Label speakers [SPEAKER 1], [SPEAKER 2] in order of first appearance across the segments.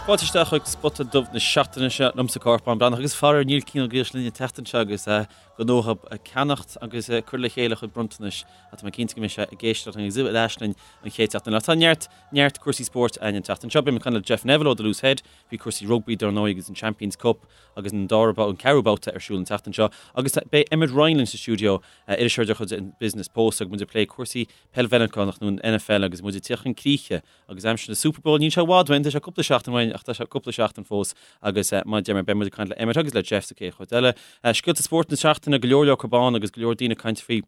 [SPEAKER 1] Fáilte isteach chuig Spota Dubh na seachtaine seo liomsa Cárthach Bán Breathnach agus faraor níl Cian Ó Gaois linn an tseachtain seo agus gnótha ag ceannacht agus ag cur le chéile a chuid bronntanais ach tá mé cinnte go mbeidh sé ag éisteacht linn agus ar ais linn an chéad seachtain eile. Tá neart, neart cúrsaí spóirt againn an tseachtain seo. Beidh mé ag caint le Jeff Neville ó The Loose Head faoi cúrsaí rugbaí dar ndóigh agus an Champions Cup agus an dara, an ceathrú babhta ar siúl an tseachtain seo agus beidh Emmet Ryan linn sa stiúideo, iriseoir de chuid an Business Post agus muid ag plé cúrsaí peil Mheiriceánach nó an NFL agus muid ag tíocht chun críche Agus aimsir na Super Bowl, níl sé i bhfad uainn, tá sé cúpla seachtain uainn ach tá sé cúpla seachtain fós agus mar a deir mé, beidh muid ag caint le Emmet agus le Jeff sa chéad chuid eile. Scéalta spóirt na seachtaine, go leor leor acu ann agus go leor daoine ag caint faoi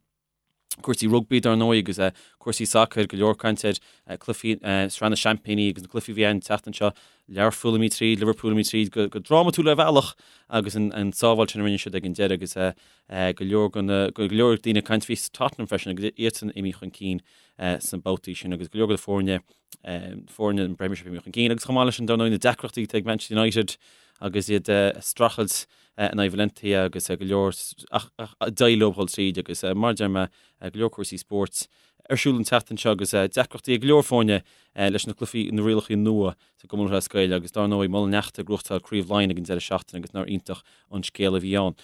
[SPEAKER 1] cúrsaí rugbaí dar ndóigh agus cúrsaí sacair, go leor caint ar cluichí Sraith na Seaimpíní agus na cluichí a bhí ann an tseachtain seo, Learpholl imithe tríd, Liverpool imithe tríd go drámatúil ar bhealach agus an sábháil sin a rinne siad ag an deireadh agus go leor go leor daoine ag caint faoi Tottenham freisin agus iadsan imithe chun cinn sna babhtaí sin agus go leor de foirne foirne an Premiership imithe chun cinn agus chomh maith leis sin dar ndóigh na deacrachtaí atá ag Manchester United agus iad ag streachailt in aghaidh Valencia agus go leor ach d'éirigh leo dhul tríd agus mar a deir mé go leor cúrsaí spóirt ar siúl an tseachtain seo agus deacrachtaí ag go leor foirne leis na cluichí na rialacha nua sa gCumann Lúthchleas Gael agus dar ndóigh Muileann Neachta ag gnóthachtáil Craobh Laighean ag an deireadh seachtaine agus nár iontach an scéal a bhí ann.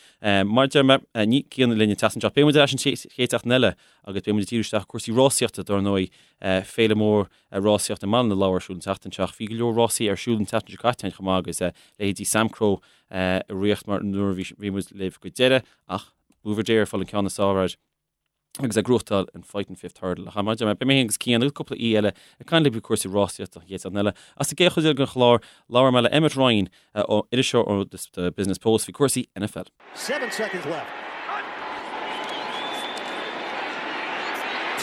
[SPEAKER 1] Mar a deir mé, níl Cian linn an tseachtain seo. Beidh muid ar ais an chéad seachtain eile agus beidh muid ag díriú isteach ar cúrsaí rásaíochta dar ndóigh, féile mór rásaíochta i mBaile na Lobhar ar siúl an tseachtain seo ach bhí go leor rásaí ar siúl an tseachtain seo caite chomh maith agus leithéidí Samcro i riocht mar nuair a bhí muid libh go deireadh ach Buveur D'Air ag fáil an ceann is fearr air. agus ag gnóthachtáil an Fighting Fifth Hurdle. Ach mar a deir mé, beidh mé féin agus Cian agus cúpla aoi eile ag caint libh faoi cúrsaí rásaíochta an chéad seachtain eile. Ach sa gcéad chuid eile den chlár, labhróidh mé le Emmet Ryan, iriseoir ó The Business Post, faoi cúrsaí
[SPEAKER 2] NFL. 7 seconds left.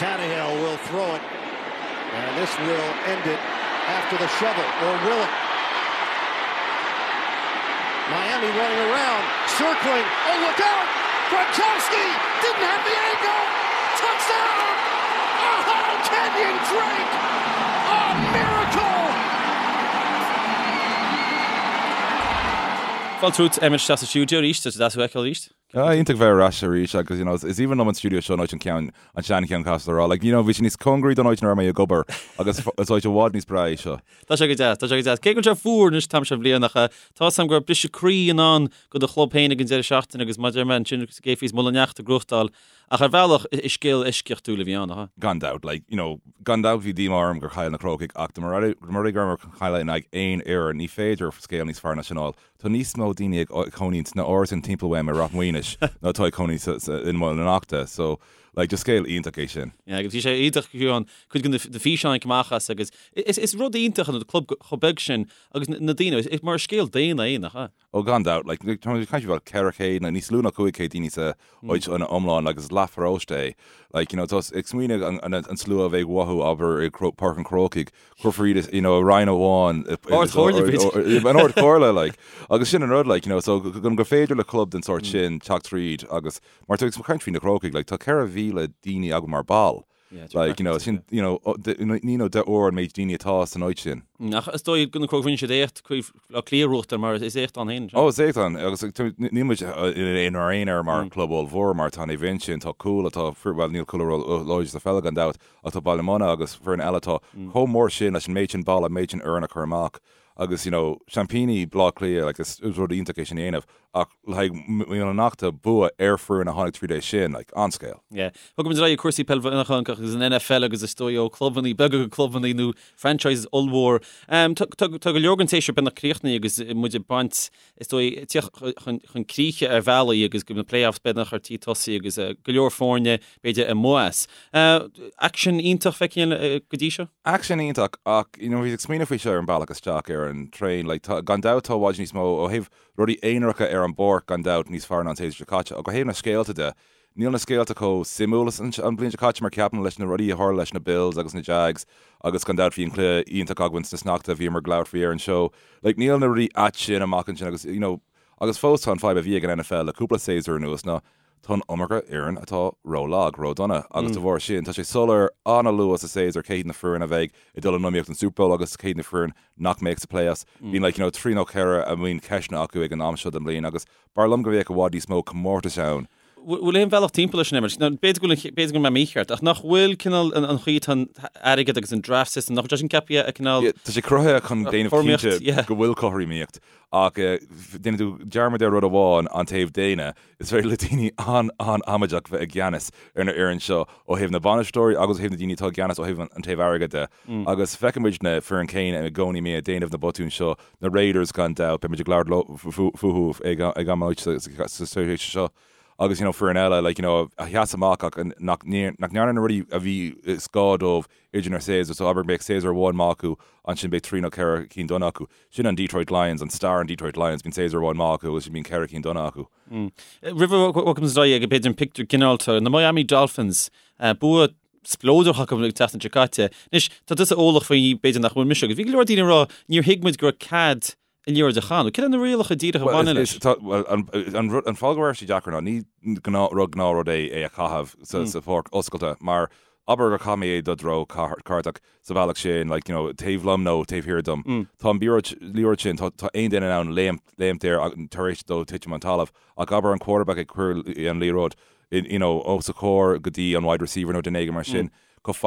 [SPEAKER 2] Tannehill will throw it, and this will end it after the shovel, or will it? Miami running around, circling. Oh, look out! Gronkowski didn't have the angle. Touchdown! Oh, Kenyon Drake! A miracle!
[SPEAKER 1] Fáilte romhat Emmet isteach sa stiúideo arís, tá sé deas thú a fheiceáil arís.
[SPEAKER 3] Ah, iontach bheith ar ais arís agus you know, is aoibhinn liom an stiúideo seo an áit an ceann an seancheann caithfidh mé a rá. Like, you know, bhí sé níos cóngaraí don áit ina raibh mé ag obair agus is áit i bhfad níos breá é seo.
[SPEAKER 1] Tá sé go deas, tá sé go deas. Cé go bhfuil sé fuar anois an t-am seo den bhliain ach tá a fhios agam go raibh briseadh croí i ndán do do chlub féin ag an deireadh seachtaine agus mar a deir mé ansin cé fios Muileann Neachta ag gnóthachtáil ach ar bhealach is scéal eisceachtúil a bhí ann, nach ea?
[SPEAKER 3] Gan dabht, like, you know, gan dabht bhí díomá orm gur chaill na Crócaigh ach dá mba rud é go rabhamar chun cailleadh in aghaidh aon fhoireann, ní féidir scéal níos fearr ná sin a fháil. Tá níos mó daoine ag cónaí sna árasáin timpeall uaim i Ráth Maonais ná atá ag cónaí i Muileann Neachta. So, like, just scéal iontach é sin.
[SPEAKER 1] Yeah, agus bhí sé iontach fiú an cuid de na físeáin amach as agus is rud iontach an club chomh beag sin agus na daoine, is mar scéal daonna é, nach ea?
[SPEAKER 3] Oh, gan dabht, like, tá muid ag caint faoi 400 nó níos lú ná 500 daoine sa áit ina iomlán agus is leathpharóiste é. Like, you know, tá ag smaoineamh an slua a bheidh uathu, abair, i Páirc an Chrócaigh, Cuirfear iad you know, i roinn amháin.
[SPEAKER 1] Ard-Chomhairle,
[SPEAKER 3] b'fhéidir. An Ard-Chomhairle, like. Agus sin an rud, like, you know, so go gur féidir le club den sórt sin teacht tríd agus mar tá ag caint faoi na Crócaigh, like, tá 4,000 daoine againn mar ball.
[SPEAKER 1] Yeah,
[SPEAKER 3] Like, you know, sin, you know, naoi nó deich uair an méid daoine atá san áit sin.
[SPEAKER 1] Ach is dóigh go na Crócaigh rinne siad éacht Craobh Átha Cliath a ghnóthachtáil mar is éacht ann féin.
[SPEAKER 3] Ó, is éacht ann, agus níl muid inár aonar mar club ollmhór mar tá Naomh Uinseann, tá Cúl atá, bhuel níl Cúl láidir sa pheil gan dabht, Ach tá Baile Munna agus foireann eile atá chomh mór sin leis an méid sin ball, an méid sin foireann a chur amach agus you know seaimpíní Bhaile Átha Cliath like is rud iontach é sin a dhéanamh ach le haghaidh Muileann Neachta bua ar foireann a tháinig tríd é sin like an-scéal.
[SPEAKER 1] Yeah. Bogfaidh muid ar aghaidh ag cúrsaí peil Mheiriceánach agus an NFL agus is dóigh ó clubannaí beaga go clubannaí nó franchises ollmhór. Tá tá go leor den tséasúr beagnach críochnaithe agus muid ag baint is dóigh, tíocht chun críche ar bhealaí agus go na playoffs beagnach ar tí tosaí agus go leor foirne, b'fhéidir, amuigh as. Aicsean iontach feicthe go dtí seo?
[SPEAKER 3] Aicsean iontach ach, you know, bhíos ag smaoineamh faoi seo ar an bealach isteach ar an traein, like, tá, gan dabht tá i bhfad níos mó ó thaobh rudaí aonaracha ar an bpáirc gan dabht níos fearr ná an séasúr seo caite ach ó thaobh na scéalta de, Níl na scéalta chomh suimiúil is an bhliain seo caite mar ceapaim leis na rudaí a tharla leis na Bills agus na Jags agus gan dabht bhí an cluiche iontach againn sna sneachta a bhíomar ag labhairt faoi ar an seó. Like níl na rudaí ait sin amach ansin agus you know agus fós tá an fadhb a bhí ag an NFL le cúpla séasúr anuas ná tá an iomarca fhoireann atá ró-lag, ró-dona agus de bharr sin tá sé soiléir an-luath sa séasúr cé hiad na foireann a bheidh ag dul in iomaíocht don Super Bowl agus cé hiad na foireann nach mbeidh sa playoffs. Bíonn like you know trí nó ceithre a mbíonn ceisteanna acu ag an am seo den bhliain agus b'fhearr liom go mbeadh i bhfad níos mó comórtais ann.
[SPEAKER 1] Bhfuil aon bhealach timpeall leis an imirt? Nó b'fhéidir go bhfuil, b'fhéidir go bhfuil mé mícheart, ach nach bhfuil cineál an chaoi atá an airgead agus an draft system, nach bhfuil sé sin ceaptha a cineál.
[SPEAKER 3] Yeah, tá sé cruthaithe chun déanamh cinnte go bhfuil cothromaíocht, ach déanann tú dearmad ar rud amháin, an taobh daonna, is féidir le daoine an-an-amaideach bheith i gceannas ar na fhoireann seo ó thaobh na bainisteoirí agus ó thaobh na daoine atá i gceannas ó thaobh an taobh airgead de. Agus feicimid na foireann céanna i gcónaí ag déanamh na botúin seo, Na Raiders gan dabht, beidh muid ag labhairt leo fúthu ag am éigin sa tréimhse seo agus you know foireann eile like you know a sheas amach ach nach nach ndearna na rudaí a bhí is gá dóibh idir na séasúir so abair beidh séasúr amháin maith acu ansin beidh trí nó ceithre cinn dona acu. Sin an Detroit Lions, an stair an Detroit Lions, bíonn séasúr amháin maith acu agus bíonn ceithre cinn dona acu.
[SPEAKER 1] Roimh a bhogfaimid ar aghaidh ag b'fhéidir an pictiúr ginearálta, na Miami Dolphins, bua spleodrach acu an tseachtain seo caite. Anois, tá tusa eolach faoi b'fhéidir nach bhfuil mise agus bhí go leor daoine ag rá níor thuig muid go raibh cead an liathróid a chaitheamh. Cad é na rialacha díreach a bhaineann leis?
[SPEAKER 3] Bhuel, an fáth go raibh sé deacair ná ní gnáth rud é é a chaitheamh sa pháirc oscailte mar abair gur chaith mé é do threo ceartach sa bhealach sin, like, you know, taobh liom nó taobh thiar dom. Tá an liathróid sin, tá aon duine in ann léimt air tar éis dó titim an talamh ach abair an quarterback ag cur an liathróid you know, os a chomhair go dtí an wide receiver nó duine éigin mar sin, chomh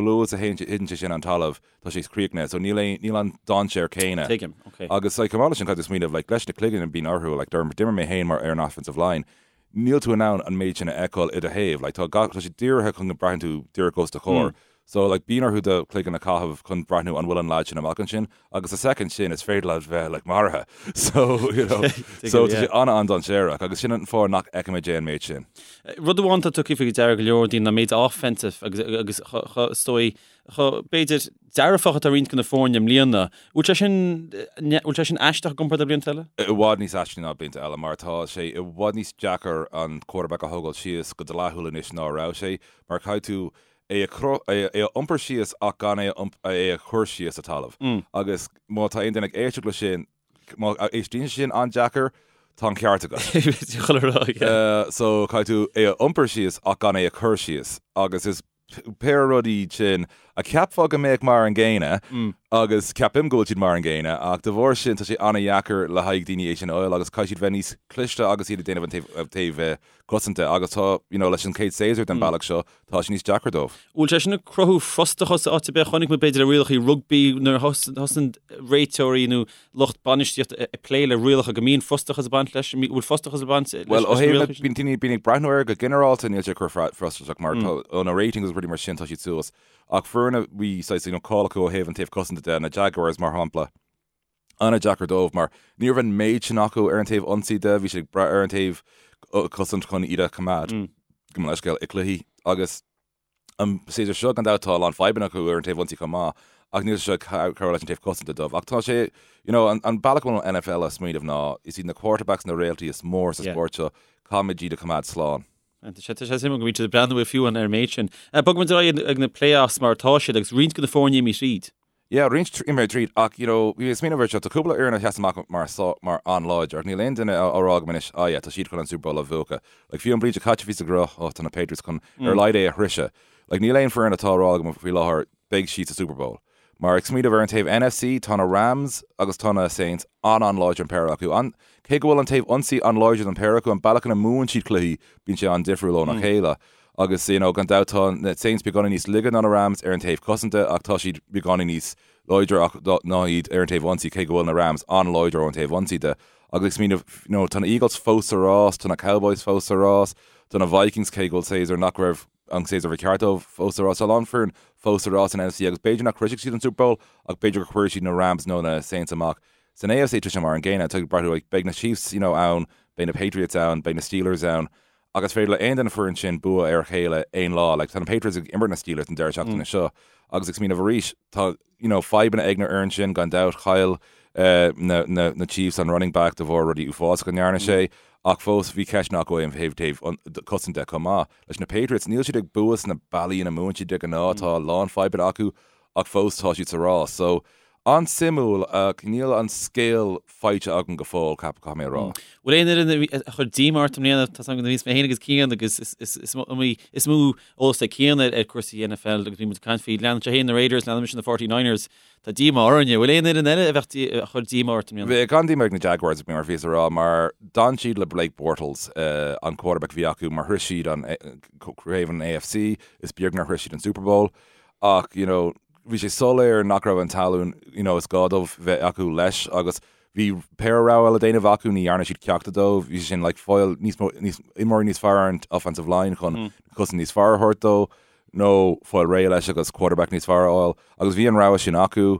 [SPEAKER 3] luath is a thiteann sé sin an talamh, tá sé críochnaithe. So níl aon, níl an dainséar céanna.
[SPEAKER 1] Tuigim, ok.
[SPEAKER 3] Agus like, chomh maith leis sin, caithfidh tú smaoineamh, like, leis na cloigeann a bíonn orthu, like, d'imir mé féin mar ar an offensive line, níl tú in ann an méid sin a fheiceáil i do thaobh, like, tá gach, tá sé dírithe chun go braitheann tú díreach os do chomhair. So, like, bíonn orthu do chloigeann a chaitheamh chun breathnú an bhfuil an lad sin amach ansin, agus sa soicind sin is féidir leat bheith, like, maraithe. So, you know, so tá sé an-an-dainséarach, agus sin an fáth nach bhfeicimid é an méid sin.
[SPEAKER 1] Rud amháin atá tugtha faoi deara go leor daoine ná méid offensive agus, agus is dóigh, chomh, b'fhéidir, dearfach atá roinnt de na foirne i mbliana. Bhfuil sé sin, bhfuil sé sin aisteach i gcomparáid le blianta eile?
[SPEAKER 3] I bhfad níos aistí ná blianta eile, mar tá sé i bhfad níos deacair an quarterback a thógáil síos go dleathúil anois ná a raibh sé, mar caithfidh tú é a é a iompar síos ach gan é a é a chur síos sa talamh. Agus má tá aon duine ag éisteacht leis sin, má éistíonn sé sin an-deacair, tá an ceart agat.
[SPEAKER 1] Chuile rud,
[SPEAKER 3] yeah. So caithfidh tú é a iompar síos ach gan é a chur síos. Agus is péire rudaí iad sin a cheapfá go mbeadh mar an gcéanna agus ceapaim go bhfuil siad mar an gcéanna ach de bharr sin tá sé an-dheacair le haghaidh daoine é sin a fháil agus caithfidh siad bheith níos cliste agus iad ag déanamh an taobh cosanta agus tá, you know, leis an chéad séasúr den bealach seo, tá sé níos deacra dóibh.
[SPEAKER 1] Bhfuil sé sin ag cruthú frustrachas áit ar bith? Chonaic muid b'fhéidir le rialacha rugbaí nuair a thosaíonn réiteoirí nó lucht bainistíochta ag plé le rialacha go mbíonn frustrachas ag baint leis. Bhfuil frustrachas ag baint leis
[SPEAKER 3] Bhuel, ó thaobh na, bíonn daoine, bíonn ag breathnú air go ginearálta níl sé ag cur frustrachas mar tá, ó na ratings agus rudaí mar sin tá siad suas. Ach foireann a bhí saghas, you know, cáil acu ó thaobh an taobh cosanta de, na Jaguars mar shampla, an-deacair dóibh mar ní raibh an méid sin acu ar an taobh ionsaí de, bhí siad ag brath ar an taobh cosaint chun iad a choimeád, gabh mo leithscéal, i gcluichí agus an séasúr seo gan dabht tá a lán fadhbanna acu ar an taobh ionsaí chomh maith ach níl sé seo ag cabhrú leis an taobh cosanta dóibh. Ach tá sé, you know, an bealach a bhfuil an NFL ag smaoineamh ná is iad na quarterbacks na réaltaí is mór sa spórt seo, caithfimid iad a choimeád slán.
[SPEAKER 1] Tá sé suimiúil go mbíonn siad ag breathnú fiú ar an méid sin. Bogfaimid ar aghaidh ag na playoffs mar atá siad agus roinnt de na foirne imithe tríd.
[SPEAKER 3] Yeah, roinnt imithe tríd ach, you know, bhí mé ag smaoineamh air seo, tá cúpla fhoireann a sheas amach mar mar an-láidir ach níl aon duine á rá agam anois, ah yeah, tá siad chun an Super Bowl a bhuachan. Like, fiú an bhliain seo caite bhí siad ag rá, oh, tá na Patriots chun ar a laghad é a shroicheadh. Like, níl aon foireann atá á rá agam faoi láthair, beidh siad sa Super Bowl. Mar ag smaoineamh ar an taobh NFC, tá na Rams agus tá na Saints an-an-láidir an péire acu. An, cé go bhfuil an taobh ionsaí an-láidir don péire acu, an bealach ina mbuann siad cluichí, bíonn sé an-difriúil óna chéile. Agus, you know, gan dabht tá na Saints beagáinín níos laige ná na Rams ar an taobh cosanta ach tá siad beagáinín níos láidre ach ná iad ar an taobh ionsaí cé go bhfuil na Rams an-láidir ón taobh ionsaí de. Agus ag smaoineamh, you know, tá na Eagles fós sa rás, tá na Cowboys fós sa rás, tá na Vikings cé go bhfuil séasúr nach raibh an séasúr a bhí ceart dóibh fós sa rás. Tá a lán foireann fós sa rás san NFC agus b'fhéidir nach shroisfidh siad an Super Bowl ach b'fhéidir go gcuirfidh siad na Rams nó na Saints amach. San AFC tá sé mar an gcéanna, tá ag breathnú like beidh na Chiefs, you know, ann, beidh na Patriots ann, beidh na Steelers ann. Agus is féidir le aon duine foireann sin bua ar a chéile aon lá. Like, tá na Patriots ag imirt na Steelers an deireadh seachtaine seo agus ag smaoineamh arís, tá, you know, fadhbanna ag na fhoireann sin gan dabht. Chaill eh, na, na, na Chiefs an running back de bharr rudaí uafásacha a ndearna sé, ach fós bhí ceisteanna acu ó thaobh taobh an cosaint de chomh maith. Leis na Patriots, níl siad ag bua sna bealaí ina mbuann siad de ghnáth, tá a lán fadhbanna acu ach fós tá siad sa rás. So, An-suimiúil ach níl an scéal faighte agam go fóill, caithfidh mé a rá.
[SPEAKER 1] Bhfuil aon fhoireann a chuir díomá ort i mbliana? Tá 's agam nuair a bhíos mé féin agus Cian agus is mó eolas ag Cian ar cúrsaí NFL agus bhí muid ag caint faoi leanann sé féin na Raiders, leanann mise na 49ers. Tá díomá orainne. Bhfuil aon fhoireann eile a bheadh a chuir díomá ort i mbliana?
[SPEAKER 3] Bhí an-díomá ag na Jaguars, mar a bhíos a rá, mar d'fhan siad le Blake Bortles, an quarterback a bhí acu, mar shroich siad an craobh an AFC, is beag nár shroich siad an Super Bowl. Ach, you know, bhí sé soiléir nach raibh an tallann, you know, is gá dóibh bheith acu leis agus bhí péire rogha le déanamh acu, ní dhearna siad ceachtar dóibh, bhí sé sin like fáil níos mó, níos, imreoirí níos fearr ar an offensive line chun cosaint níos fearr a thabhairt dó nó fáil réidh leis agus quarterback níos fearr a fháil agus bhí an rogha sin acu,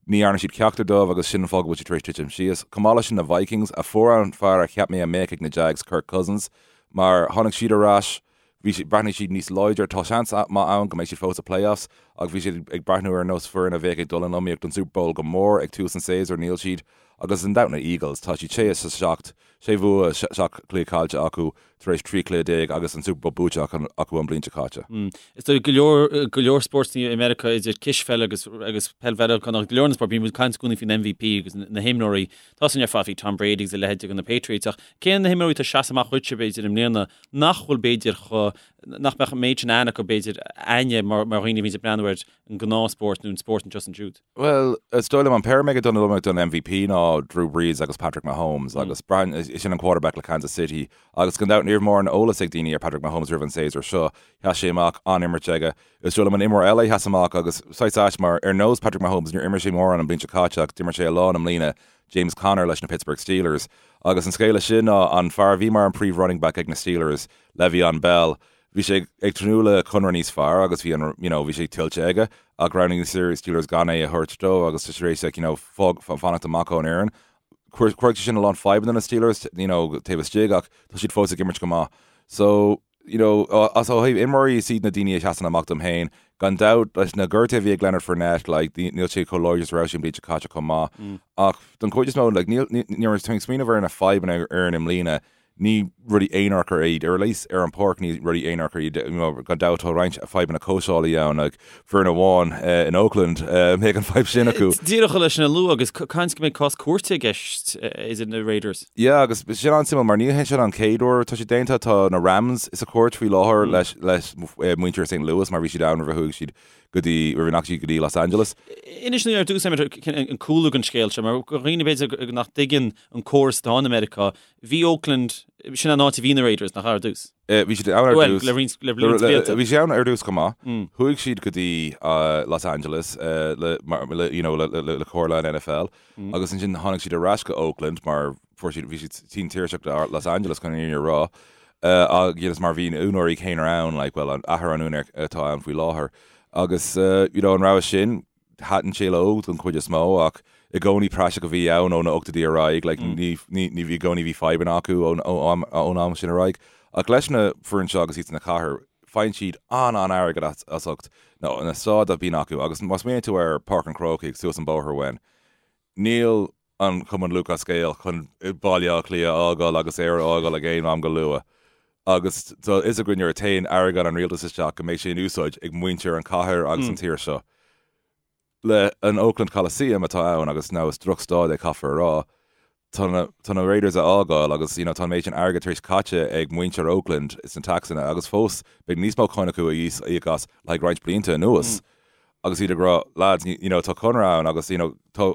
[SPEAKER 3] ní dhearna siad ceachtar dóibh agus sin an fáth go bhfuil siad tar éis titim síos. Chomh maith leis sin na Vikings a fuair an fear a cheap mé a mbeadh ag na Jags, Kirk Cousins, mar tháinig siad ar ais, Bhí siad, bhreathnaigh siad níos láidre. Tá seans maith ann go mbeidh siad fós sa playoffs ach bhí siad ag breathnú ar nós foireann a bheadh ag dul in iomaíocht don Super Bowl go mór ag tús an tséasúir. Níl siad. Agus gan dabht na Eagles. Tá siad 6 is 7, sé bhua, 7 cluiche caillte acu tar éis 13 cluiche agus an Super Bowl buaite acu an bhliain seo caite.
[SPEAKER 1] Is dóigh go leor, go leor spóirt i Meiriceá idir cispheil agus, agus peil Mheiriceánach, go leor na spóirt, bíonn muid ag caint i gcónaí faoin MVP agus na himreoirí. Tá sin ar fad faoi Tom Brady agus a leithéid de na Patriots ach cé na himreoirí atá ag seasamh amach dhuitse b'fhéidir i mbliana nach bhfuil b'fhéidir chomh, nach mbeadh an méid sin aithne acu b'fhéidir againne mar mar dhaoine a bhíonns ag breathnú ar an ngnáthspórt nó an spórt anseo is ansiúd.
[SPEAKER 3] Bhuel, is dóigh liom an péire a mbeidh ag dul in iomaíocht don MVP ná Drew Brees agus Patrick Mahomes agus braitheann, sin an quarterback le Kansas City agus gan dabht ní raibh mórán eolas ag daoine ar Patrick Mahomes roimh an séasúr seo. Sheas sé amach, an-imirt aige. Is dóigh liom an imreoir eile a sheas amach agus saghas ait mar ar nós Patrick Mahomes níor imir sé mórán an bhliain seo caite ach d'imir sé a lán i mbliana, James Conner leis na Pittsburgh Steelers. Agus an scéal leis sin ná an fear a bhí mar an príomh running back ag na Steelers, Le'Veon Bell, bhí sé ag tnúth le conradh níos fearr agus bhí an you know bhí sé tuillte aige ach roghnaigh na Steelers gan é a thabhairt dó agus tá sé tar éis like you know fág fanacht amach ón fhoireann. Chuir sé sin a lán fadhbanna na Steelers you know taobh istigh ach tá siad fós ag imirt go maith. So you know, as ó thaobh imreoirí is iad na daoine a sheasann amach dom féin. Gan dabht, leis na gortuithe a bhí ag Leonard Fournette, like, níl sé chomh láidir is a raibh sé an bhliain seo caite chomh maith. Ach don chuid is mó, like, níl, nuair atá mé ag smaoineamh ar na fadhbanna ar fhoireann i mbliana, ní rudaí aonaracha iad, ar a least ar an pháirc ní rudaí aonaracha iad, you know, gan dabht tá roinnt fadhbanna cóitseálaí ann, like, foireann amháin in Oakland, mbeidh an fadhb sin acu.
[SPEAKER 1] Díreach leis sin a lua agus caint go mbeidh cás cúirte i gceist idir na Raiders.
[SPEAKER 3] Yeah, agus sin an-suimiúil mar ní hé sin an chéad uair atá sé déanta, tá na Rams sa chúirt faoi láthair leis leis muintir St Louis mar bhí siad ann roimh a chuaigh siad go dtí, roimh a ndeachaigh siad go dtí Los Angeles.
[SPEAKER 1] Inis dúinn ar dtús an cúlra don scéal seo mar do dhaoine b'fhéidir nach dtuigeann an córas atá in America, bhí Oakland, sin an áit a bhí na Raiders, nach ea ar dtús?
[SPEAKER 3] Bhí siad ann ar
[SPEAKER 1] dtús. Well, le roinnt, le roinnt blianta.
[SPEAKER 3] Bhí siad ann ar dtús chomh maith. Chuaigh siad go dtí Los Angeles le, le, you know, le, le, le comhairle an NFL agus ansin tháinig siad ar ais go Oakland mar fuair siad, bhí siad tinn tuirseach de Los Angeles chun an fhírinne a rá. Agus mar bhí na úinéirí céanna ann, like, well, an athair an úinéir atá ann faoi láthair. Agus, you know, an rogha sin, Thaitin sé leo don chuid is mó ach i gcónaí praiseach a bhí ann ó na ochtóidí ar aghaidh, like ní ní bhí i gcónaí bhí fadhbanna acu ón ón am sin ar aghaidh. Ach leis na foireann seo agus iad sna cathair, faigheann siad an-an-airgead as as ucht na na staid a bhíonn acu agus má smaoiníonn tú ar Páirc an Chrócaigh suas an bóthar uainn, níl an Cumann Lúthchleas Gael chun Baile Átha Cliath a fhágáil agus Éire a fhágáil ag aon am go luath. Agus tá a fhios againn nuair a théann airgead an rialtais isteach go mbeidh sé in úsáid ag muintir an chathair agus an tír seo. Le an Oakland Coliseum atá ann agus now is drochstaid é caithfear a rá, tá na tá na Raiders a fhágáil agus you know tá an méid sin airgead tar éis caite ag muintir Oakland sna taxanna agus fós beidh níos mó cáin acu a íoc as le haghaidh roinnt blianta anuas. Agus iad ag rá, lads, you know, tá conradh ann agus, you know, tá,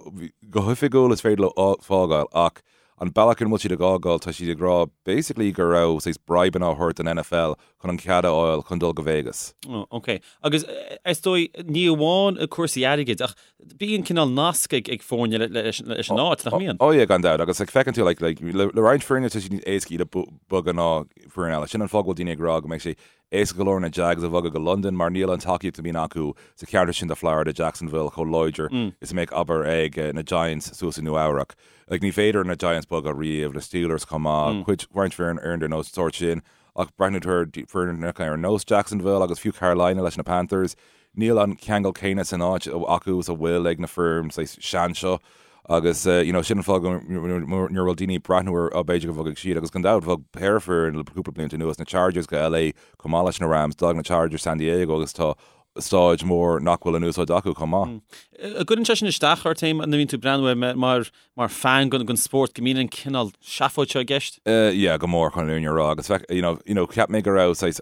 [SPEAKER 3] go hoifigiúil is féidir leo fágáil ach an bealach ina bhfuil siad ag fhágáil, tá siad ag rá basically go raibh saghas bribeanna á thabhairt don NFL chun an cead a fháil chun dul go Vegas.
[SPEAKER 1] Oh, ok. Agus is dóigh, ní amháin cúrsaí airgid ach bíonn cineál nasc ag ag foirne leis leis an áit, nach mbíonn?
[SPEAKER 3] Oh yeah, gan dabht. Agus like feiceann tú like, like le le roinnt foirne tá sé níos éasca iad a bogadh ná foireann eile. Sin an fáth go bhfuil daoine ag rá go mbeidh sé Éasca go leor na Jags a bhogadh go Londain mar níl an tacaíocht a bhíonn acu sa cheantar sin de Florida, Jacksonville, chomh láidir is a mbeadh, abair, ag na Giants suas i Nua Eabhrac. Like, ní féidir na Giants bogadh riamh, na Steelers chomh maith, cuid, roinnt foireann ar an nós sórt sin. Ach breathnú tú ar foireann ar nós Jacksonville agus fiú Carolina leis na Panthers, Níl an ceangal céanna san áit acu is a bhfuil ag na foirne saghas sean seo agus you know sin an fáth go nuair a bhfuil daoine ag breathnú ar oh b'fhéidir go bhogfaidh siad agus gan dabht bhog péire foireann le cúpla blianta anuas, na Chargers go LA chomh maith leis na Rams, d'fhág na Chargers San Diego agus tá. stáid mór nach bhfuil in úsáid acu chomh maith.
[SPEAKER 1] An gcuireann sé sin isteach ort féin nuair a bhíonn tú ag breathnú air mar mar fan den spórt go mbíonn an cineál seafóid seo i gceist?
[SPEAKER 3] Yeah, go mór chun an fhírinne a rá agus bheadh, you know, you know, cheap mé go raibh saghas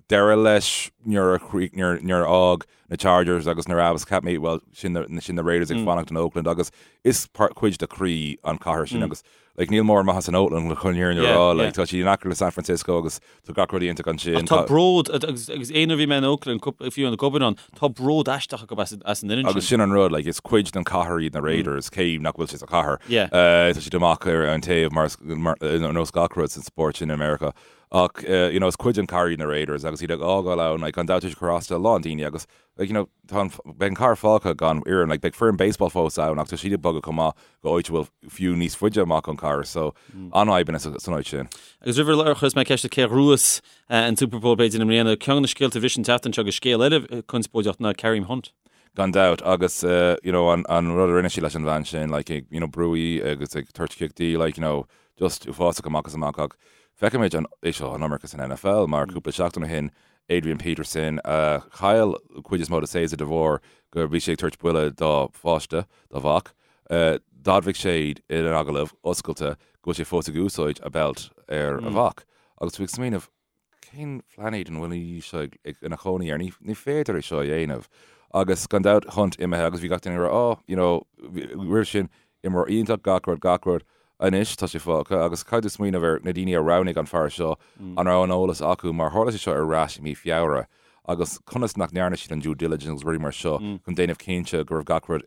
[SPEAKER 3] deireadh leis nuair a nuair nuair a fhág na Chargers agus na Rams, cheap mé, well, sin na sin na Raiders ag fanacht in Oakland agus is part cuid de chroí an chathair sin agus Like, níl mórán maitheas in Oakland chun an fhírinne a rá. Like, tá sí in aice le San Francisco agus tá gach rud iontach ansin.
[SPEAKER 1] Ach tá bród, agus aon uair a bhí mé in Oakland, fiú ag obair ann, tá bród aisteach acu as an fhoireann
[SPEAKER 3] sin. Agus sin an rud, like, is cuid den chathair iad na Raiders, cé nach bhfuil sé sa chathair. Tá siad amach ar an taobh mar, ar nós gach rud san spórt sin i Meiriceá. Ach, you know, is cuid den chathair iad na Raiders agus iad ag fhágáil ann, like, gan dabht tá sé ag cur as do a lán daoine agus Like, you know, tá an, beidh an chathair fágtha gan fhoireann, like, beidh foireann baseball fós ann ach tá siad ag bogadh chomh maith go áit a bhfuil fiú níos faide amach ón chathair, so an-fhadhbanna san áit sin.
[SPEAKER 1] Agus roimh ar chuirfeas mé ceist ort cé a ghnóthós an Super Bowl b'fhéidir i mbliana, ceann de na scéalta a bhris an tseachtain seo agus scéal eile conspóideach ná Kareem Hunt.
[SPEAKER 3] Gan dabht, agus you know, an, an rud a rinne sé leis an bhean sin, like, ag, you know, brú í agus ag tabhairt cic di, like, you know, just uafásach amach is amach ach feicimid an, é seo an iomarca san NFL mar cúpla seachtain ó shin Adrian Peterson, a chaill an chuid is mó de séasúr de bharr go bhí sé ag tabhairt buille dá pháiste, dá mhac. D'admhaigh sé in agallamh oscailte go bhfuil sé fós ag úsáid a belt ar a mhac. Agus tú ag smaoineamh, cén phláinéad an bhfuil í seo ina chónaí air? Ní féidir é seo a dhéanamh. Agus gan dabht, Hunt imithe agus bhí gach duine ag rá, oh, you know, roimh sin, Imreoir iontach, gach rud, gach rud. Anois tá sé fágtha agus caithfidh tú smaoineamh ar na daoine a roghnaigh an fear seo, an raibh an eolas acu mar tharla sé seo ar ais i mí Feabhra agus conas nach ndearna siad an due diligence agus rudaí mar seo chun déanamh cinnte go raibh gach rud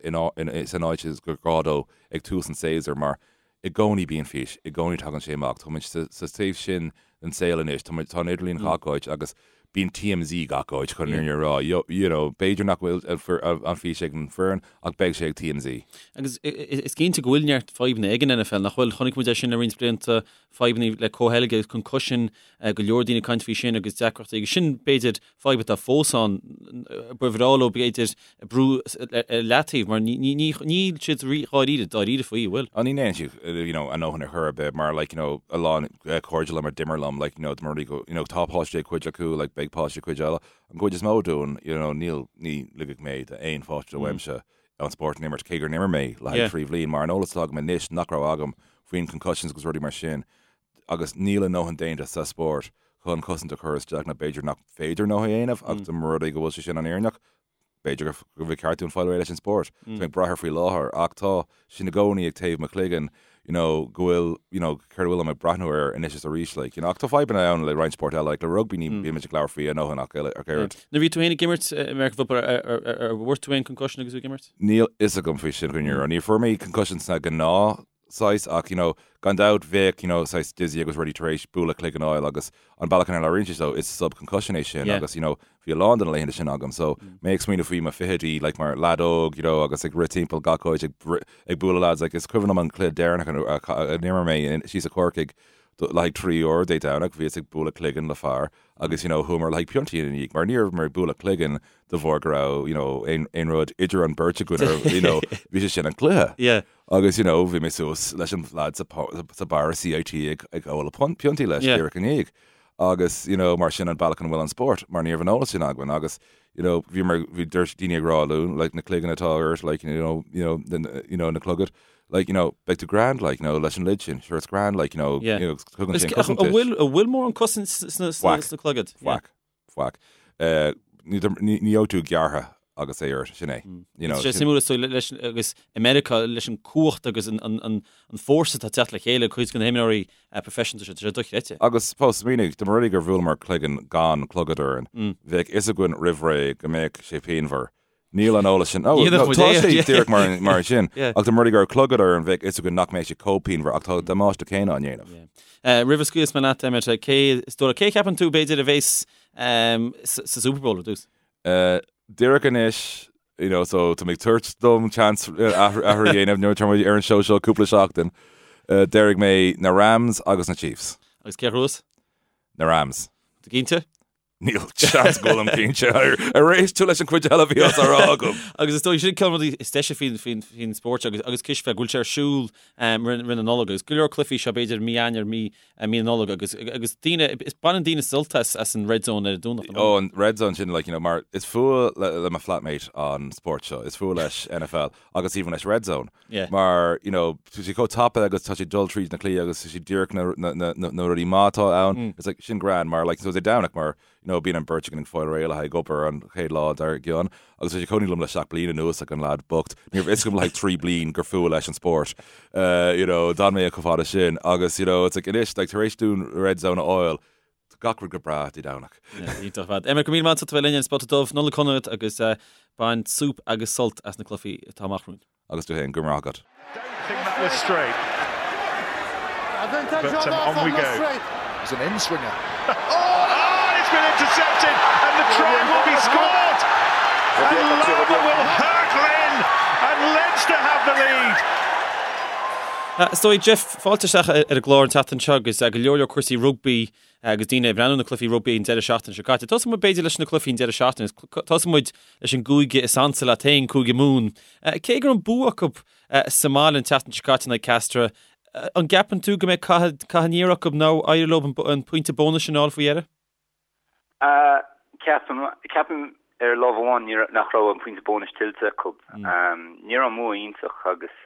[SPEAKER 3] san áit is gur gá dó ag tús an tséasúir mar i gcónaí bíonn fís, i gcónaí tagann sé amach. Tá muid sa taobh sin den saol anois, tá muid, tá an idirlíon gach áit agus bíonn TMZ gach áit chun an fhírinne a rá. You know, b'fhéidir nach bhfuil an fís ag an foireann ach beidh sé ag TMZ.
[SPEAKER 1] Agus is cinnte go bhfuil neart fadhbanna ag an NFL, nach bhfuil? Chonaic muid é sin le roinnt blianta, fadhbanna le comhcheilge agus concussion, go leor daoine ag caint faoi sin agus deacrachtaí agus sin b'fhéidir fadhb atá fós ann, ba bhreá leo b'fhéidir brú ar leataobh mar níl siad dháiríre, dáiríre faoi, an bhfuil?
[SPEAKER 3] Á ní ndéanann siad you know a ndóthain ar chor ar bith mar like you know a lán cairde liom a d'imir liom like you know dá mba rud é go you know tá páistí ag cuid acu like beidh páistí ag cuid eile an gcuid is mó dúinn you know níl ní ligfidh mé d'aon pháiste uaimse an spórt a imirt cé gur imir mé le haghaidh 3 bhliain mar an eolas atá agam anois nach raibh agam faoin concussions agus rudaí mar sin agus níl a ndóthain déanta sa spórt chun cosaint a chur isteach nó b'fhéidir nach féidir a ndóthain a dhéanamh ach dá mba rud é go bhfuil sé sin an fhírinneach, b'fhéidir go bhfuil ceart dúinn fáil réidh leis an spórt. Tá mé ag brath air faoi láthair ach tá sin i gcónaí ag taobh mo chloigeann you know go bhfuil you know céard a bhfuil ag breathnú air anois is arís like you know ach tá fadhbanna ann le roinnt spórt eile like le rugbaí ní bímid ag labhairt faoi a ndóthain ach oiread.
[SPEAKER 1] Nuair a bhí tú féin ag imirt American football ar bhfuair tú aon concussion agus tú ag imirt?
[SPEAKER 3] Níl fhios agam faoi sin chun an fhírinne. Ní fuair mé concussion sna gnáth saghas ach you know gan dabht bheadh you know saghas dizzy agus rudaí tar éis bualadh cloigeann a fháil agus an bealach ina labhraíonn sé so is sub concussion é sin agus you know bhí a lán de na laethanta sin agam so mé ag smaoineamh faoi mo fichidí like mar leaid óg you know agus ag rith timpeall gach áit ag ag bualadh lads like is cuimhin liom an cluiche deireanach a d'imir mé síos i Corcaigh le haghaidh 3 uair Dé Domhnaigh bhíos ag bualadh cloigeann le fear agus you know chuamar le haghaidh piontaí ina dhiaidh mar ní rabhamar ag bualadh cloigeann de bharr go raibh you know aon aon rud idir an beirt againn ar you know bhí sé sin an cluiche.
[SPEAKER 1] Yeah.
[SPEAKER 3] Agus you know bhí mé suas leis an lad sa sa bar CIT ag ag ól piontaí leis Yeah. díreach i ndiaidh. Agus you know mar sin an bealach ina bhfuil an spórt mar ní raibh an eolas sin againn agus you know bhí mar bhí dúirt daoine ag rá linn like na cloigeann atá ort like you know you know the, you know na clogad like you know beidh tú grand like you know leis an lid sin sure it's grand like you know
[SPEAKER 1] Yeah.
[SPEAKER 3] you know tugann
[SPEAKER 1] Is
[SPEAKER 3] sé an
[SPEAKER 1] an
[SPEAKER 3] cosaint duit.
[SPEAKER 1] bhfuil an bhfuil mórán cosaint sna sna
[SPEAKER 3] Faic.
[SPEAKER 1] sna clogaid?
[SPEAKER 3] Yeah. Faic. Faic. Ní ní bheidh tú gearrtha agus é ort, sin é.
[SPEAKER 1] You know, Tá sé suimiúil is dóigh leis agus i Meiriceá leis an cumhacht agus an an an an fórsa atá ag teacht le chéile cuid de na himreoirí professional seo, tá sé dochreidte.
[SPEAKER 3] Agus fós, smaoinigh, dá mba rud é gur bhuaileamar cloigeann gan clogad orainn, bheadh fhios againn roimh ré go mbeadh sé pianmhar. Níl an eolas sin. Oh, no, tá sé díreach mar, mar sin. Ach dá mba rud é go raibh clogad orainn, bheadh fhios againn nach mbeadh sé chomh pianmhar ach tá an damáiste céanna á ndéanamh.
[SPEAKER 1] Yeah. Roimh a scaoilfeas mé leat, Emmet, cé, is dóigh, cé a cheapann tú b'fhéidir a bhéas um, sa, sa Super Bowl ar dtús?
[SPEAKER 3] Uh, díreach anois, you know, so tá mé ag tabhairt dom chance athrú a dhéanamh nuair atá muid ar an seó seo cúpla seachtain. Uh, déarfaidh mé na Rams agus na Chiefs.
[SPEAKER 1] Agus cé a ghnóthós?
[SPEAKER 3] Na Rams.
[SPEAKER 1] Tú cinnte?
[SPEAKER 3] Níl seans go bhfuilim cinnte. Ar éist tú leis an chuid eile a bhí á rá agam?
[SPEAKER 1] Agus is dóigh sin ceann de na rudaí is deise faoin faoin faoin spórt seo agus agus cispheil go bhfuil sé ar siúl roimh roimh na Nollag agus go leor cluichí seo b'fhéidir mí Eanáir mí mí na Nollag agus agus daoine is baineann daoine sult as as an Red Zone ar an Domhnach.
[SPEAKER 3] Ó an Red Zone sin like you know mar is fuath le le mo flatmate an spórt seo, is fuath leis NFL agus even leis Red Zone.
[SPEAKER 1] Yeah.
[SPEAKER 3] Mar you know tá sé chomh tapa agus tá sé dul tríd na cluichí agus tá sé díreach na na na na na rudaí maith atá ann. Mm. It's like sin grand mar like so Dé Domhnach mar you know bíonn an beirt againn ag fáil réidh le haghaidh obair an chéad lá dár gcionn agus tá sé cónaí liom le 7 bliana anuas like an lad bocht. Ní raibh fhios agam le haghaidh 3 bliain gur fuath leis an spórt. Uh, you know, d'fhan mé chomh fada sin agus you know it's like anois like tar éis dúinn Red Zone a fháil Tá gach rud go breá Dé Domhnach.
[SPEAKER 1] Iontach ar fad. Emmet, go raibh míle maith agat as ucht a bheith linn ar an Spota Dubh. Nollaig shona duit agus bain súp agus sult as na cluichí atá amach romhainn.
[SPEAKER 3] Agus tú féin, go raibh maith agat.
[SPEAKER 2] Don't think that was straight. But on we go.
[SPEAKER 4] It's an in-swinger.
[SPEAKER 2] Oh, it's been intercepted and the try will be scored. And Larmour will hurtle in and Leinster have the lead.
[SPEAKER 1] Is dóigh, Jeff, fáilte isteach ar an gclár an tseachtain seo agus go leor leor cúrsaí rugbaí agus daoine ag breathnú na cluichí rugbaí an deireadh seachtaine seo caite. Tosóidh muid b'fhéidir leis na cluichí an deireadh seachtaine. Tosóidh muid leis an gcúige is ansa leat féin, Cúige Mumhan. Cé go raibh an bua acu sa mbaile an tseachtain seo caite in aghaidh Castres, an gceapann tú go mbeidh cath aniar acu nó éireoidh leo an pointe bónais sin a fháil faoi dheireadh?
[SPEAKER 5] Ceapaim, ceapaim ar lámh amháin ní raibh, nach raibh an pointe bónais tuillte acu. Ní raibh an bua iontach agus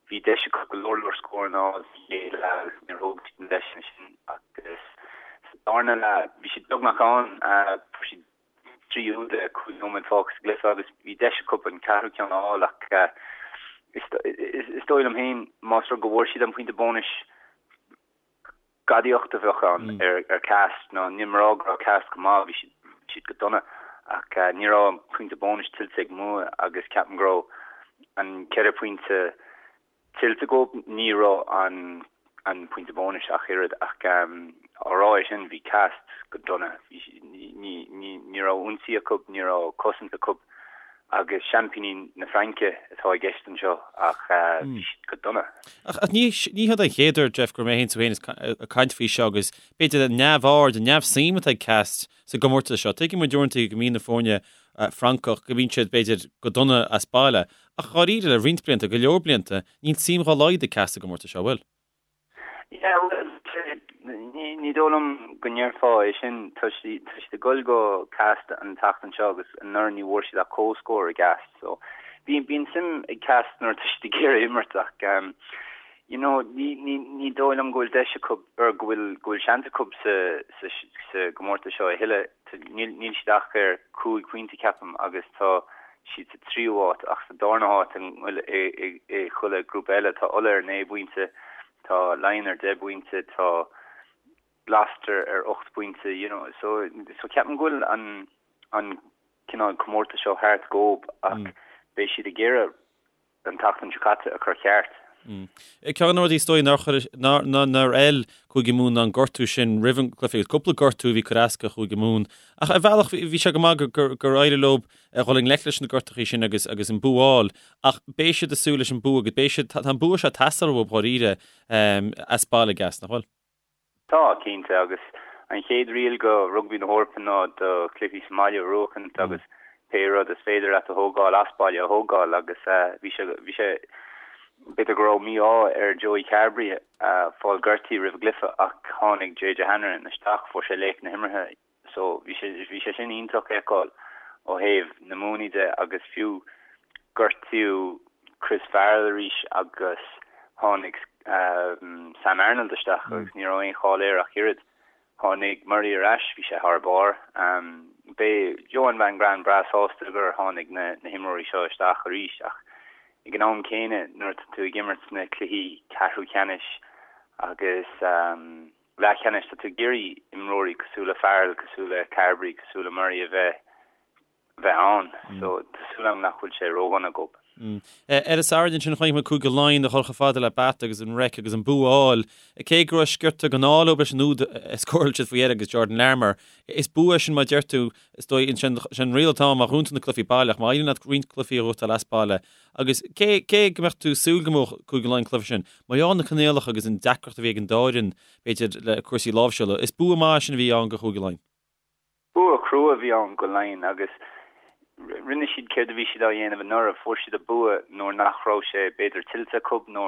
[SPEAKER 5] bhí deis acu go leor leor scóranna a fháil sa chéad leath agus níor thóg siad na deiseanna sin agus sa darna leath bhí siad beagnach ann, fuair siad 3 úd le 5 nóiméad fágtha sa gcluiche agus bhí deis acu an ceathrú ceann a fháil ach is dóigh liom féin más rud go bhfuair siad an pointe bónais gadaíocht a bheadh ann ar Castres nó níl mé ag rá go raibh Castres go maith, bhí siad, bhí siad go dona ach ní raibh an pointe bónais tuillte ag Mumha agus ceapaim go raibh an ceithre phointe tuillte acu, ní raibh an an pointe bónais ach oiread ach á rá é sin bhí Castres go dona, bhí ní ní ní raibh ionsaí acu, ní raibh cosaint acu. Agus seaimpíní na Fraince atá i gceist anseo ach bhí siad go dona.
[SPEAKER 1] Ach ní hiod an chéad uair, Jeff, go raibh mé féin tú féin ag caint faoi seo agus b'fhéidir an neamhaird, an neamhsuim atá ag Castres sa gcomórtas seo. Tuigeann muid uaireanta go mbíonn na foirne Francach, go mbíonn siad b'fhéidir go dona as baile. Ach dháiríre, le roinnt blianta, go leor blianta, níl suim dhá laghad ag Castres sa gcomórtas seo, an bhfuil?
[SPEAKER 5] Yeah, bhuel, ní dóigh liom go ndéarfá é sin. Tá siad ag dul go Castres an tseachtain seo agus anuraidh ní bhfuair siad ach comhscór i gCastres. So, bíonn bíonn suim ag Castres nuair atá siad ag iarraidh imirt ach um, you know, ní, ní, ní dóigh liom go bhfuil deis acu or go bhfuil go bhfuil seans acu sa, sa, sa gcomórtas seo a thuilleadh. Níl, níl siad ach ar chúig phointe ceapaim agus tá siad sa tríú háit ach sa darna háit i, i, i chuile grúpa eile tá Ulaidh ar 9 bpointe, tá Laighin ar 10 bpointe, tá Gloucester ar 8 bpointe, you know, so, so ceapaim go bhfuil an, an cineál comórtas seo thart dhób ach beidh siad ag iarraidh an tseachtain seo caite a chur ceart.
[SPEAKER 1] Ceann de na rudaí is dóigh nár chuir, nár, nár fheil Cúige Mumhan ná an gortú sin roimh an gcluiche agus cúpla gortú a bhí ag cur as do Chúige Mumhan. Ach ar bhealach bhí sé go maith gur, gur éirigh leo a dhul i ngleic leis na gortachaí sin agus, agus an bua a fháil. Ach beidh siad ag súil leis an bua agus beidh siad, tá an bua seo ag teastáil uathu dháiríre as baile i gCastres, nach bhfuil?
[SPEAKER 5] Tá, cinnte, agus an chéad riail go Rugbaí na hEorpa ná do chluichí sa mbaile a bhuachaint agus pé rud is féidir leat a thógáil as baile a thógáil agus bhí sé, bhí sé, b'fhéidir go raibh mí-ádh ar Joey Carbery fáil gortaithe roimh an gcluiche ach tháinig JJ Hanrahan isteach, fuair sé laoch na himeartha. So bhí sé bhí sé sin iontach a fheiceáil ó thaobh na Mumhnaigh de agus fiú gortaíodh Chris Farrell arís agus tháinig Sam Arnold isteach agus ní raibh aon chall air ach oiread. Tháinig Murray ar ais, bhí sé thar barr. Beidh Johann van Graan breá sásta gur tháinig na na himreoirí seo isteach arís ach ag an am céanna nuair atá tú ag imirt sna cluichí ceathrú ceannais agus leathcheannais, tá tú ag iarraidh imreoirí cosúil le Farrell, cosúil le Carbery, cosúil le Murray a bheith bheith ann. So tá súil agam nach bhfuil sé ródhona dhób.
[SPEAKER 1] Ar an Satharn ansin chonaic muid Cúige Laighean a dhul chomh fada le Bath agus an Reic agus an bua a fháil. Cé go raibh sciorta den ádh leo leis an úd a scóráil siad faoi dheireadh agus Jordan Larmour. Is bua é sin mar a deir tú, is dóigh, sin an riail atá ann má ghnóthaíonn tú na cluichí baile ach má éiríonn leat roinnt cluichí a ghnóthachtáil as baile Agus cé, cé go mbeadh tú ag súil go mbuafadh Cúige Laighean an cluiche sin, mar gheall ar na coinníollacha agus an deacracht a bhí ag an dá fhoireann, b'fhéidir, le cúrsaí láimhseála, is bua maith é sin a bhí ann do Chúige Laighean.
[SPEAKER 5] Bua crua a bhí ann go Laighin agus rinne siad céard a bhí siad á dhéanamh anuraidh, fuair siad an bua nuair nach raibh sé b'fhéidir tuillte acu nó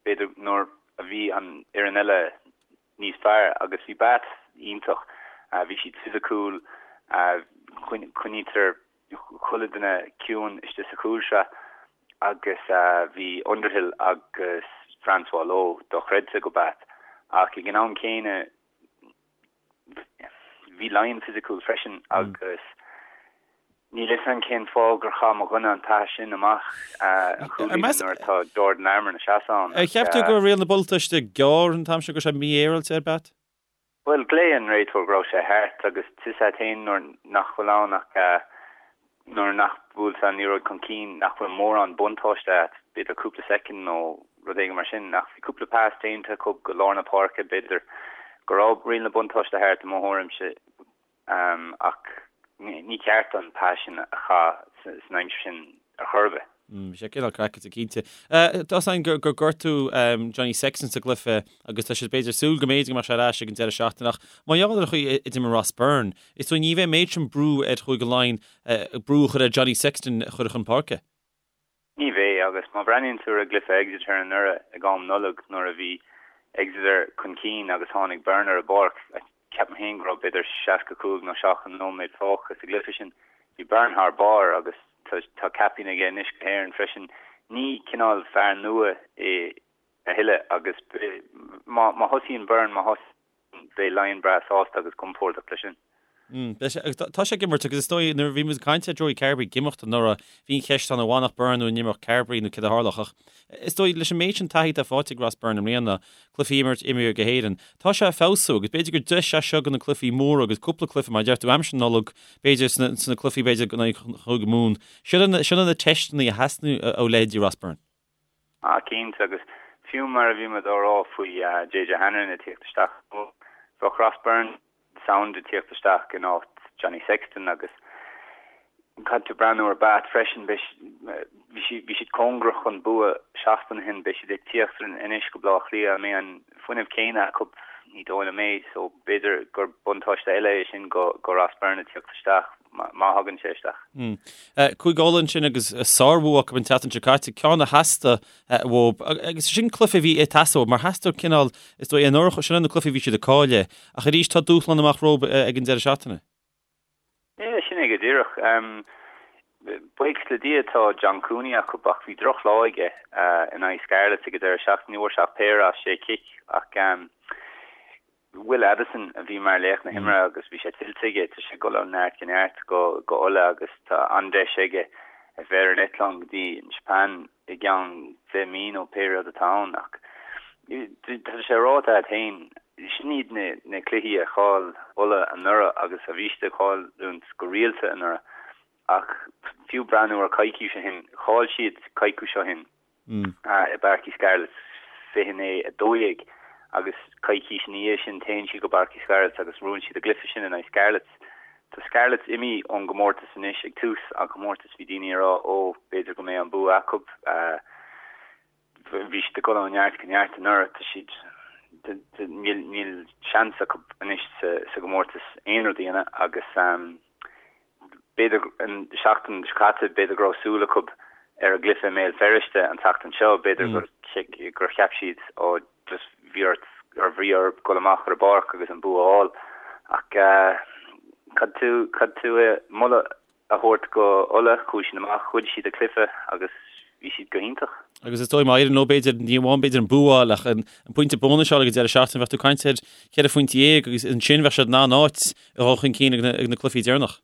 [SPEAKER 5] b'fhéidir nuair a bhí an fhoireann eile níos fearr agus bhí Bath iontach, bhí siad fisiciúil, coinnítear chuile duine ciúin istigh sa chúlsraith agus bhí Underhill agus Francois Louw dochreidte go Bath ach ag an am céanna bhí Laighin fisiciúil freisin agus níl fhios agam cén fáth gur chaith mo dhuine an pas sin amach an chúilín nuair atá Jordan Larmour ina seasamh ann.
[SPEAKER 1] Ar cheap tú go raibh riail na buntáiste gearr an t-am sin go raibh sé mífhéaráilte ar Bath?
[SPEAKER 5] Bhuel, ghlaoigh an réiteoir go raibh sé thart agus tá fhios agat féin nuair nach bhfuil ann ach nuair nach bhfuil an liathróid chun cinn nach bhfuil mórán buntáiste agat, b'fhéidir cúpla soicind nó rud éigin mar sin. Ach bhí cúpla pas déanta acu go lár na páirce, b'fhéidir go raibh riail na buntáiste thart i mo thuairimse ach ní ceart an pas sin a chaitheamh san aimsir sin ar chor ar bith.
[SPEAKER 1] Bhí sé cineál craiceáilte cinnte. Tá fhios againn gur gortaíodh Johnny Sexton sa gcluiche agus tá siad b'fhéidir súil go mb'fhéidir go mbeadh sé ar ais ag an deireadh seachtaine ach mar gheall ar an chaoi a d'imir Ross Byrne, is dóigh ní bheidh an méid sin brú ar Chúige Laighean brú a chur ar Johnny Sexton a chur chun páirce.
[SPEAKER 5] Ní bheidh agus má bhreathnaíonn tú ar an gcluiche Exeter anuraidh ag am Nollag nuair a bhí Exeter chun cinn agus tháinig Byrne ar an bpáirc, Ceapaim féin go raibh b'fhéidir 65 nó 70 nóiméad fágtha sa gcluiche sin. Bhí Byrne thar barr agus tá caipín aige anois go hÉirinn freisin. Ní cineál fear nua é a thuilleadh agus má thosaíonn Byrne, má thosaíonn, beidh Laighin breá sásta agus compordach leis sin.
[SPEAKER 1] Beidh sé, agus tá sé ag imirt agus is dóigh nuair a bhí muid ag caint ar Joey Carbery ag imeacht anuraidh, bhí an cheist ann an bhfanfadh Byrne nó an imeodh Carbery nó céard a tharlódh ach is dóigh leis an méid sin taithí atá faighte ag Ross Byrne i mbliana, cluichí a imirt imeartha go hÉirinn. Tá sé ag feabhsú agus b'fhéidir gur deis é seo do na cluichí móra agus cúpla cluiche mar a deir tú aimsir na Nollag, b'fhéidir sna cluichí b'fhéidir in aghaidh Chúige Mumhan. Sin na teisteanna a theastaíonn ó leithéidí Ross Byrne.
[SPEAKER 5] Ah cinnte agus fiú mar a bhí muid á rá faoi JJ Hanrahan ag tíocht isteach, bheadh Ross Byrne sound ag tíocht isteach in áit Johnny Sexton agus caithfidh tú breathnú ar Bath freisin, bhí siad cóngarach chun bua seachtain ó shin, beidh siad ag tíocht anois go Baile Átha Cliath, an mbeidh an fuinneamh céanna acu? Ní dóigh liom é, so b'fhéidir gur buntáiste eile é sin go Ross Byrne ag tíocht isteach, má thagann sé isteach.
[SPEAKER 1] Cúige Uladh ansin agus sárbhua acu an tseachtain seo caite, ceann a theastaigh uathu agus sin cluiche a bhí ag teastáil mar theastaigh cineál, is dóigh, anuraidh, sin na cluichí a bhí siad ag cailleadh ach arís tá dúshlán amach rompu ag an deireadh seachtaine.
[SPEAKER 5] Yeah, sin é go díreach. Buíochas le Dia tá John Cooney acu ach bhí drochlá aige in aghaidh Scarlets ag an deireadh seachtaine. Ní bhfuair sé ach péire as sé chic ach Will Addison a bhí mar laoch na himeartha agus bhí sé tuillte aige. Tá sé ag dul ó neart go neart go go Ulaidh agus tá an-deis aige a bheith ar an eitleán go dtí an Seapáin i gceann 10 mí nó pé rud atá ann ach tá sé ráite agat féin, sin iad na na cluichí a chaill Ulaidh anuraidh agus a bhí siad ag cailliúint go rialta anuraidh ach fiú breathnú ar coicís ó shin, chaill siad coicís ó shin. i bPáirc Uí Scarlets 29, 12 agus coicís ina dhiaidh sin téann siad go bPáirc Uí Scarlets agus buann siad a gcluiche sin in aghaidh Scarlets. Tá Scarlets imithe ón gcomórtas anois ag tús an chomórtais bhí daoine ag rá ó b'fhéidir go mbeidh an bua acu. Bhí siad ag dul ó neart go neart anuraidh tá siad níl níl seans acu anois sa sa gcomórtas aon rud a dhéanamh agus B'fhéidir an seachtain seo caite, b'fhéidir go raibh súil acu ar an gcluiche i mBéal Feirste an tseachtain seo, b'fhéidir gur cheap siad ó just bhí ort ar bhrí orthu dul amach ar an bpáirc agus an bua a fháil. Ach caithfidh tú, caithfidh tú moladh a thabhairt go Ulaidh, chuaigh siad amach, ghoid siad an cluiche agus bhí siad go hiontach.
[SPEAKER 1] Agus is dóigh má éiríonn leo b'fhéidir, ní amháin b'fhéidir an bua a fháil ach an pointe bónais a fháil ag an deireadh seachtaine, bheadh tú ag caint ar cheithre phointe dhéag agus ansin bheadh siad in an-áit a dhul chun cinn ag na cluichí deireanach.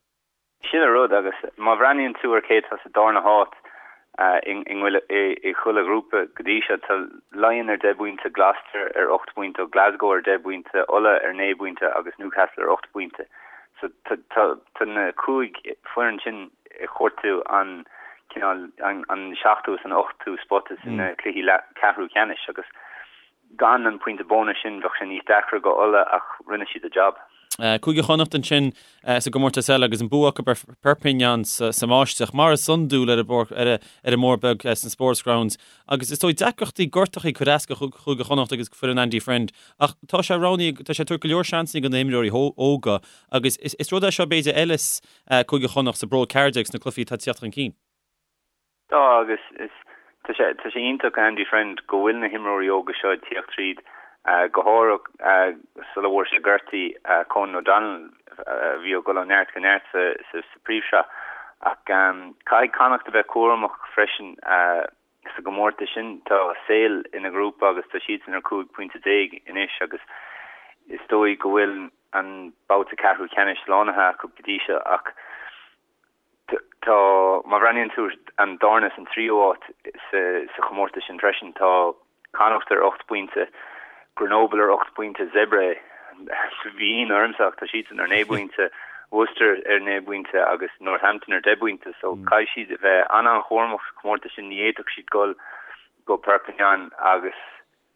[SPEAKER 5] Sin an rud agus má bhreathnaíonn tú ar cé atá sa darna háit i chuile ghrúpa go dtí seo, tá Laighean ar 10 bpointe, Gloucester ar 8 bpointe, Glasgow ar 10 bpointe, Ulaidh ar 9 bpointe agus Newcastle ar 8 bpointe. So tá na cúig foireann sin ag cuartú an cineál an seachtú is an ochtú spota sna cluichí ceathrú ceannais agus Gan an pointe bónais sin bheadh sé níos deacra go Ulaidh ach rinne siad a jab.
[SPEAKER 1] Cúige Chonnacht ansin sa gcomórtas eile agus an bua acu ar Perpignan sa mbáisteach, mar is iondúil ar an mBóthar Beag sna Sportsgrounds. Agus is dóigh deacrachtaí gortachaí ag cur as do Chúige Chonnacht agus foireann Andy Friend ach tá sé roghnaithe, tá sé ag tabhairt go leor seansanna do na himreoirí óga agus is rud é seo b'fhéidir a fheilfeas Cúige Chonnacht sa bPro 14 sna cluichí atá ag tíocht chun cinn.
[SPEAKER 5] Tá, agus is, tá sé, tá sé iontach Andy Friend go bhfuil na himreoirí óga seo ag tíocht tríd, go háirithe sula bhfuair sé gortaithe, Conan O'Donnell a bhí ag dul ó neart go neart sa, sa phríomhshraith. Ach caithfidh Connacht a bheith cúramach freisin sa gcomórtas sin. Tá Sale ina ghrúpa agus tá siadsan ar 15 pointe anois agus is dóigh go bhfuil an babhta ceathrú ceannais slánaithe acu go dtí seo ach Tá, má bhreathnaíonn tú ar an darna is an tríú háit sa chomórtas sin freisin, tá Connacht ar 8 bpointe, Grenoble ar 8 bpointe, Zebre, bhí ionadh ormsa ach tá siadsan ar 9 bpointe, Worcester ar 9 bpointe agus Northampton ar 10 bpointe. So caithfidh siad a bheith an-an-chúramach sa chomórtas sin, ní fhéadfadh siad dul go Perpignan agus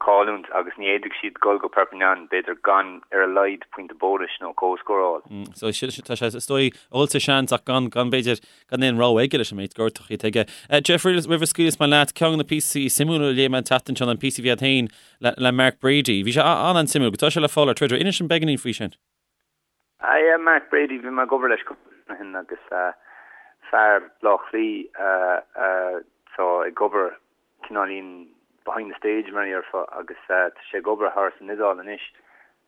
[SPEAKER 5] cailliúint agus ní fhéadfadh siad dul go Perpignan, b'fhéidir, gan ar a laghad pointe bónais nó comhscór a
[SPEAKER 1] fháil. So tá sé, is dóigh, ag dul sa seans ach gan, gan b'fhéidir, gan aon rogha aige leis an méid gortachaí atá aige. Jeff, roimh a scaoilfeas mé leat, ceann de na píosaí suimiúla a léigh mé an tseachtain seo ná an píosa a bhí agat féin le, le Mark Brady. Bhí sé an-an-suimiúil, agus tá sé le fáil ar Twitter. Inis dom beagáinín faoi sin.
[SPEAKER 5] Ah yeah, Mark Brady, bhí mé ag obair leis cúpla bliain ó shin agus fear Bleá Cliath atá ag obair cineáilín behind the stage mar a dhéarfá agus tá sé ag obair thar san Iodáil anois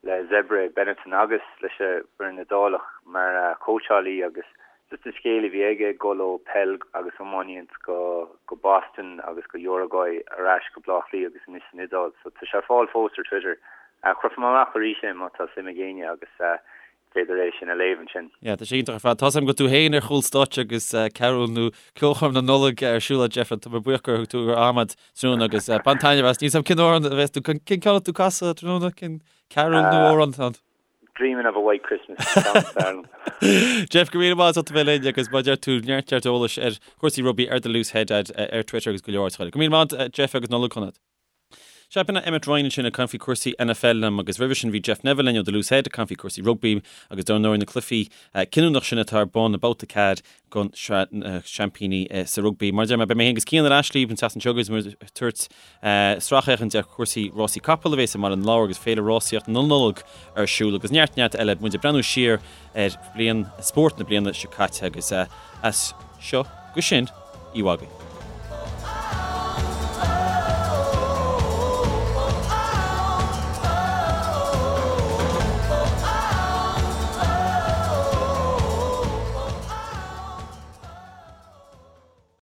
[SPEAKER 5] le Zebre, Benetton agus leis an bhfoireann Iodálach mar chóitseálaí agus just an scéal a bhí aige ag dul ó peil agus iománaíocht go go Boston agus go Uruguay ar ais go Bleá Cliath agus anois san Iodáil so tá sé ar fáil fós ar Twitter. Cuirfidh mé amach arís é má tá suim ag éinne agus is féidir é sin a léamh ansin.
[SPEAKER 1] Yeah, tá sé iontach ar fad. Tá's agam go bhfuil tú féin ar chúl stáitse agus cearúil nó ceolchoirm na Nollag ar siúl agat Jeff, tá mé buíoch gur thug tú do am tráthnóna agus bain taitneamh as. Níl 's agam cén amhrán a bheas tú, cén ceann atá tú ag casadh tráthnóna, cén cearúil nó amhrán atá ann?
[SPEAKER 5] Dreaming of a White Christmas, an ceann is fearr
[SPEAKER 1] liom. Jeff, go raibh míle maith agat as ucht a bheith linn agus mar a deir tú neart neart eolais ar chúrsaí rugbaí ar The Loose Head ar Twitter agus go leor áiteacha eile. Go raibh míle maith agat Jeff agus Nollaig shona. Sea, b'in é Emmet Ryan ansin ag caint faoi chúrsaí NFL liom agus roimhe sin bhí Jeff Neville linn ó The Loose Head ag caint faoi chúrsaí rugbaí agus dar ndóigh na cluichí cinniúnach sin atá ar bun i mbabhta 4 den Sraith na Seaimpíní sa rugbaí. Mar a deir mé, beidh mé féin agus Cian ar ais libh an tseachtain seo agus muid ag tabhairt sracfhéachaint ar chúrsaí rásaí capall a bheas i mBaile na Lobhar agus Féile Rásaíocht na Nollag ar siúl agus neart neart eile. Muid ag breathnú siar ar bhliain spóirt na bliana seo caite agus as seo go sin, oíche mhaith agaibh.